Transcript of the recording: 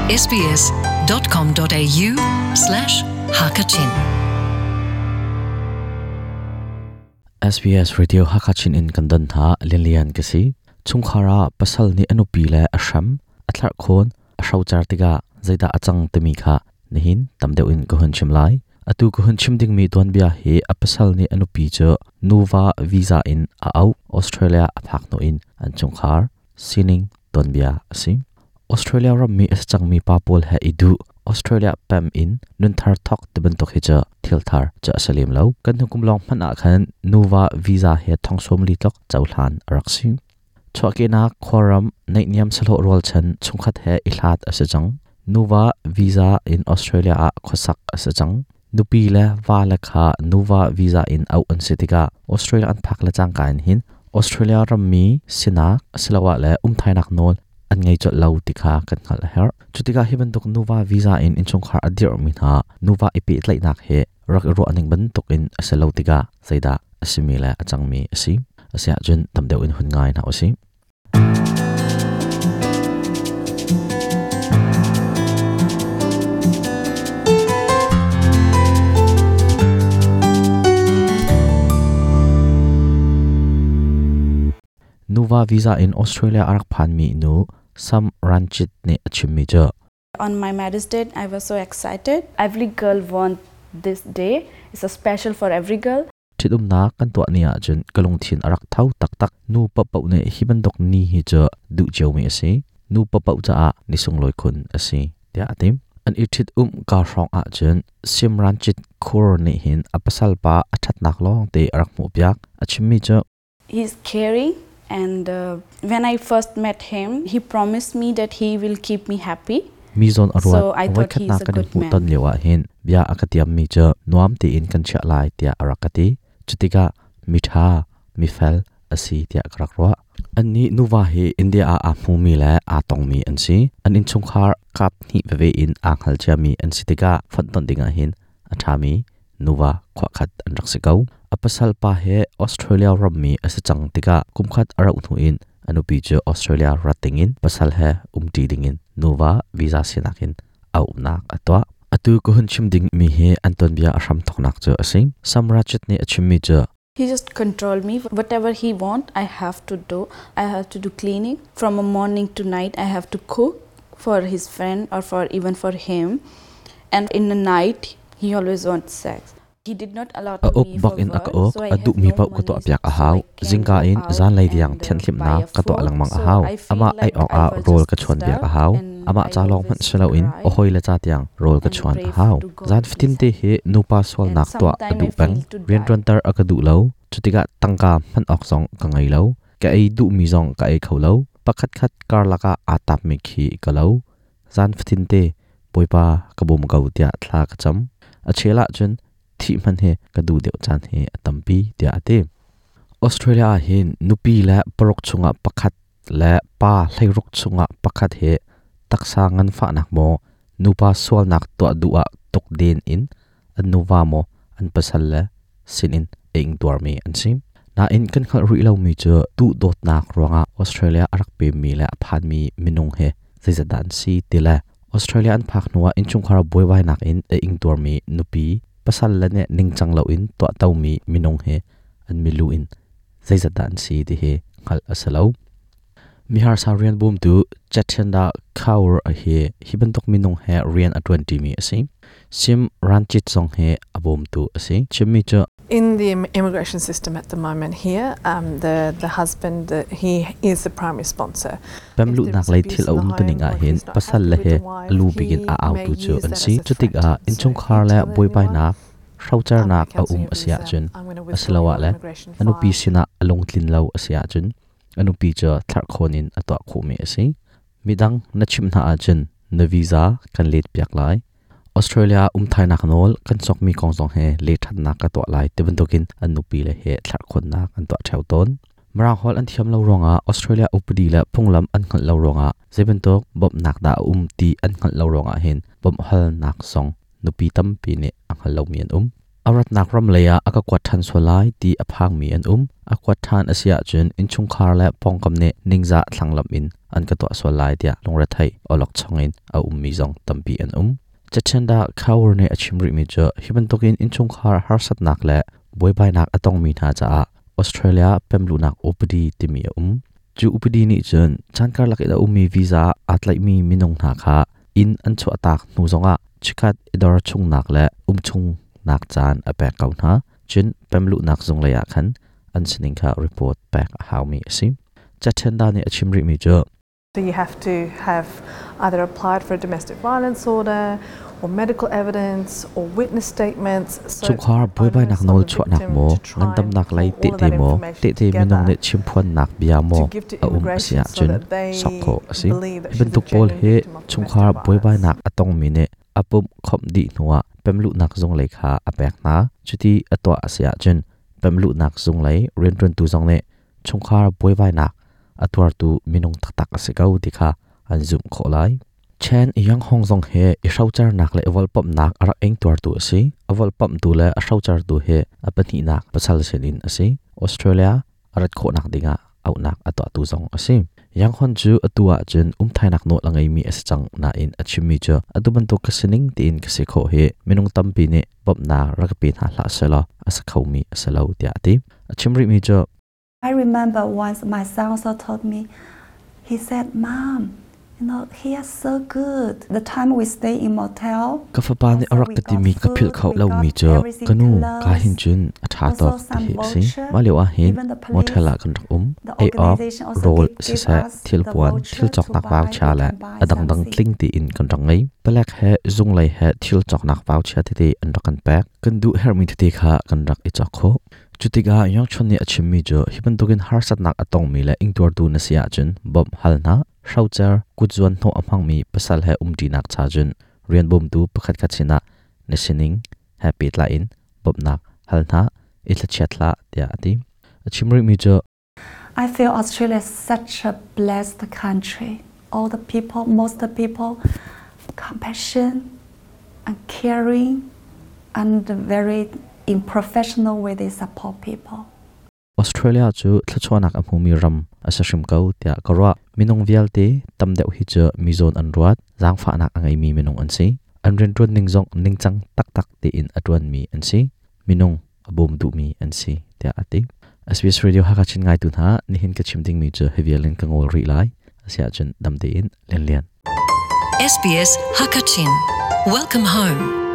sbs.com.au slash hakachin SBS Radio Hakachin in kan don hna Lianlian ka si. Chungkhar ah pasal nih a nupi le a hram, a thlarh khawn, a hrocer tikah zeidah a cang timi kha nihin tam deuh in ka hun chim lai. Atu ka hun chim dingmi tuanbia hi a pasal nih a nupi cu nuva visa in a auh Australia a phak hnu in an chungkhar sining tuanbia a si. Australia rammi a si cangmi pa pawl he i duh Australia pem in nunthar thawk ti bantuk hi cu thil thar cu a si lem lo. Kan hnukum lawng hmanh ah khan nuva visa he thong 40 tluk cohlan a rak si. Chuahkehnak khuaram naihniam sahlawh rualchan chungkhat he i hlat a si cang. Nuva visa in Australia ah khuasak a si cang. Nupi le va le kha nuva visa in auh an si tikah Australia an phak le cangka in hin Australia rammi sinak asiloah le umthainak nawl an ngei colh lo ti kha kan hngalh a herh. Cu tikah hi bantuk nuva visa in innchungkhar a dirhmi hna nuva i pehtlaihnak hi rak i ruah ning bantukin a si lo tikah zeidah a simi le a cangmi a si. Asiahcun tam deuh in hun ngai hna usih. Nuva visa in Australia a rak phanmi nu Sam Ranchit nih a chimmi cu On my marriage date, I was so excited. Every girl want this day. It's a special for every girl. Ṭhitumnak kan tuah ni ahcun ka lungthin a rak tho taktak. Nu paohpaoh nih hi bantuk ni hi cu duh ciomi a si. Nu paohpaoh caah ni sunglawi khun a si, tiah a ti. An i ṭhit-umh ka hrawng ahcun Simranjit Kaur nih hin a pasal pa a ṭhatnak lawngte a rak hmuhpiak. A chimmi cu He's caring and when I first met him, he promised me that he will keep me happy. Mi zawn a ruat. Voikhatnak kan i hmuhton lio ah hin bia a ka tiammi cu nuam tein kan chiah lai tiah a rak ka ti. Cutikah miṭha, mifel a si tiah ka rak ruah. Annih nuva hi India ah aa hmumi le aa tongmi an si. An innchungkhar kap hnih veve in aa hngal ciami an si tikah fonhtonh dingah hin a ṭhami nuva khuakhat an rak si ko. A pasal pa he Australia rammi a si cang tikah kumkhat a rauh hnu in a nupi cu Australia rat dingin pasal he umṭi dingin nuva visa sinak in auhnak a tuah. Atu ka hun chim dingmi hi an tuanbia a hramthawknak cu a si. Samrajit nih a chimmi cu He just control me. Whatever he want, I have to do. I have to do cleaning from a morning to night. I have to cook for his friend or for even for him. And in the night, he always wants sex. He did not allow A uk me bak for in a ka work, uk, so I a have duhmi no paoh ka money, tuahpiak a so hau. I can Zingka go in out zanlei tiang and thianhhlimhnak buy a ka tuah food. lengmang a So hau. I feel Amah ei like awk I ah was rawl just ka chuanpiak a stuck hau. and Amah I ca lawng hmanh always si loin cry a hawile ca tiang rawl ka and chuan a pray hau. to God Zan please fatin te help hi me. nupa And sualnak tuah a sometimes duh I peng. feel to die. Rianṭuanter a ka duh lo. Cutikah tangka hman awk zong ka ngei lo. Ka ei duhmi zong ka ei kho lo. Pakhatkhat karlak ah aa tapmi khi ka lo. Zan fatin te Bawipa ka bawm ko tiah thla ka cam. A chel ahcun thih hmanh hi ka duh deuh caan hi a tampi tiah a ti. Australia ah hin nupi le paruk chungah pakhat le pa 16 chungah pakhat hi taksa nganfahnak maw nupa sualnak tuah duh ah tukden in an nuva maw an pasal le sinin a ingtuarmi an si. Nain kan hngalh rih lomi cu duhdawtnak ruangah Australia a rak pemmi le a phanmi minung hi zeizat dah an si ti le Australia an phak hnuah innchungkhar buaibainak in a ingtuarmi nupi pasal le nih ningcang loin tuahtomi minung hi an milu in zeizat dah an si ti hi hngalh a si lo. Miharsa rian bawmtu Chetenda Kaur hi hi bantuk minung he rian a ṭuanṭimi a si. Sim Ranjit zong hi a bawmtu a si. Chimmi cu In the immigration system at the moment here, the husband, he is the primary sponsor. Pemluhnak lei thil a um tuning ah hin pasal le he a lu bik in a autu cu an si. Cutikah innchungkhar le buaibainak hrocernak a um a si ahcun asiloah le a nupi sinah a lungtlin lo a si ahcun a nupi cu thlarhkhawn in a tuah khawhmi a si. Midang na chimh hna ahcun na visa kan letpiak lai. Australia umthainak nawl kan sokmi kong zong he lehṭhannak ka tuah lai ti bantukin an nupi le he thlarhkhawnnak an tuah ṭheo tawn. Mirang holh an thiam lo ruangah Australia upadi le phunglam an hngalh lo ruangah zeibantuk bawmhnak dah a um ti an hngalh lo ruangah hin bawmhhalnak zong nupi tampi nih a hngal lomi an um. A ratnak ram lei ah a ka kuat ṭhan sual lai ti a phangmi an um. A kuat ṭhan a si ahcun innchungkhar le pawngkam nih ningzah thlanglamh in an ka tuah sual lai tiah lungretheih awlokchong in a ummi zong tampi an um. Cachenda Kaur nih a chim rihmi cu hi bantukin innchungkhar harsatnak le buaibainak a tongmi hna caah Australia pemluhnak upadi timi a um. Cu upadi nih cun caan karlak in a ummi visa aa tlaihmi minung hna kha inn an chuahtak hnu zongah chikkhat i dor chungnak le um chungnak caan a pek ko hna. Cun pemluhnak zung lei ah khan an sining kha report pek a haumi a si. Cachenda nih a chim rihmi cu So you have to have either applied for a domestic violence order or medical evidence or witness statements. So Chungkhar buaibainak nawl chuahnak maw, ngandamnak lei tehte maw, tehte minung nih chimphuannak bia maw a um a si ahcun sok khawh a si. Hi bantuk pawl hi chungkhar buaibainak a tongmi nih a pumh khawmh dih hnuah pemluhnak zung lei kha a pek hna. Cuti a tuah a si ahcun pemluhnak zung lei rianṭuantu zong nih chungkhar buaibainak a tuartu minung taktak a si ko ti kha an zumh khawh lai. Chen Yanghong zong hi i hrocernak le i volhpamhnak a rak ingtuartu a si. A volhpamhtu le a hrocertu hi a pahnihnak pasal sinin a si. Australia a rat khawhnak dingah auhnak a tuahtu zong a si. Yanghon cu atu ahcun umthainak nawl a ngeimi a si cang nain a chimmi cu atu bantuk ka sining tiin ka si khawh hi minung tampi nih bawmhnak rak ka pe hna hlah sehlaw a si khomi a si lo tiah a ti. A chim rihmi cu I remember once my son also told me, he said, Mom, you know, he is so good. The time we stay in motel, Ka fapa nih a rak ka timi ka philh kho lomi cu ka nu ka hin cun a ṭha tawk ti hi a si. Mah lio ah hin motel ah kan rak um. Ei awk, rawl siseh, thilpuan, thil cawknak vauchia le a dangdang tling tiin kan rak ngei. Palek he zunglei he thil cawknak vauchia tete an rak kan pek. Kan duh herhmi tete kha kan rak i cawk khawh. Cutikah Yongchun nih a chimmi cu hi bantukin harsatnak a tongmi le ingtuartu na si ahcun bawmh hal hna. Hrocer kutzuan hnawh a hmangmi pasal he umṭinak cha cun rian bawmtu pakhatkhat sinah na sining he pehtlai in bawmhnak hal hna, i thlachiat hlah tiah a ti. A chim rihmi cu I feel Australia is such a blessed country. All the people, most of the people, compassion and caring and very in professional way they support people. Australia cu thluachuahnak a hmumi ram a si hrim ko tiah ka ruah. Minung vialte tam deuh hi cu mi zawn an ruat, zaangfahnak a ngeimi minung an si. An rianṭuan ning zong ningcang taktak tein a ṭuanmi an si. Minung a bawm duhmi an si tiah a ti. SBS Radio Hakha Chin ngaitu hna, nihin ka chim dingmi cu hi vial in ka ngawl rih lai. Asiahcun dam tein Lianlian. SBS Hakachin. Welcome home.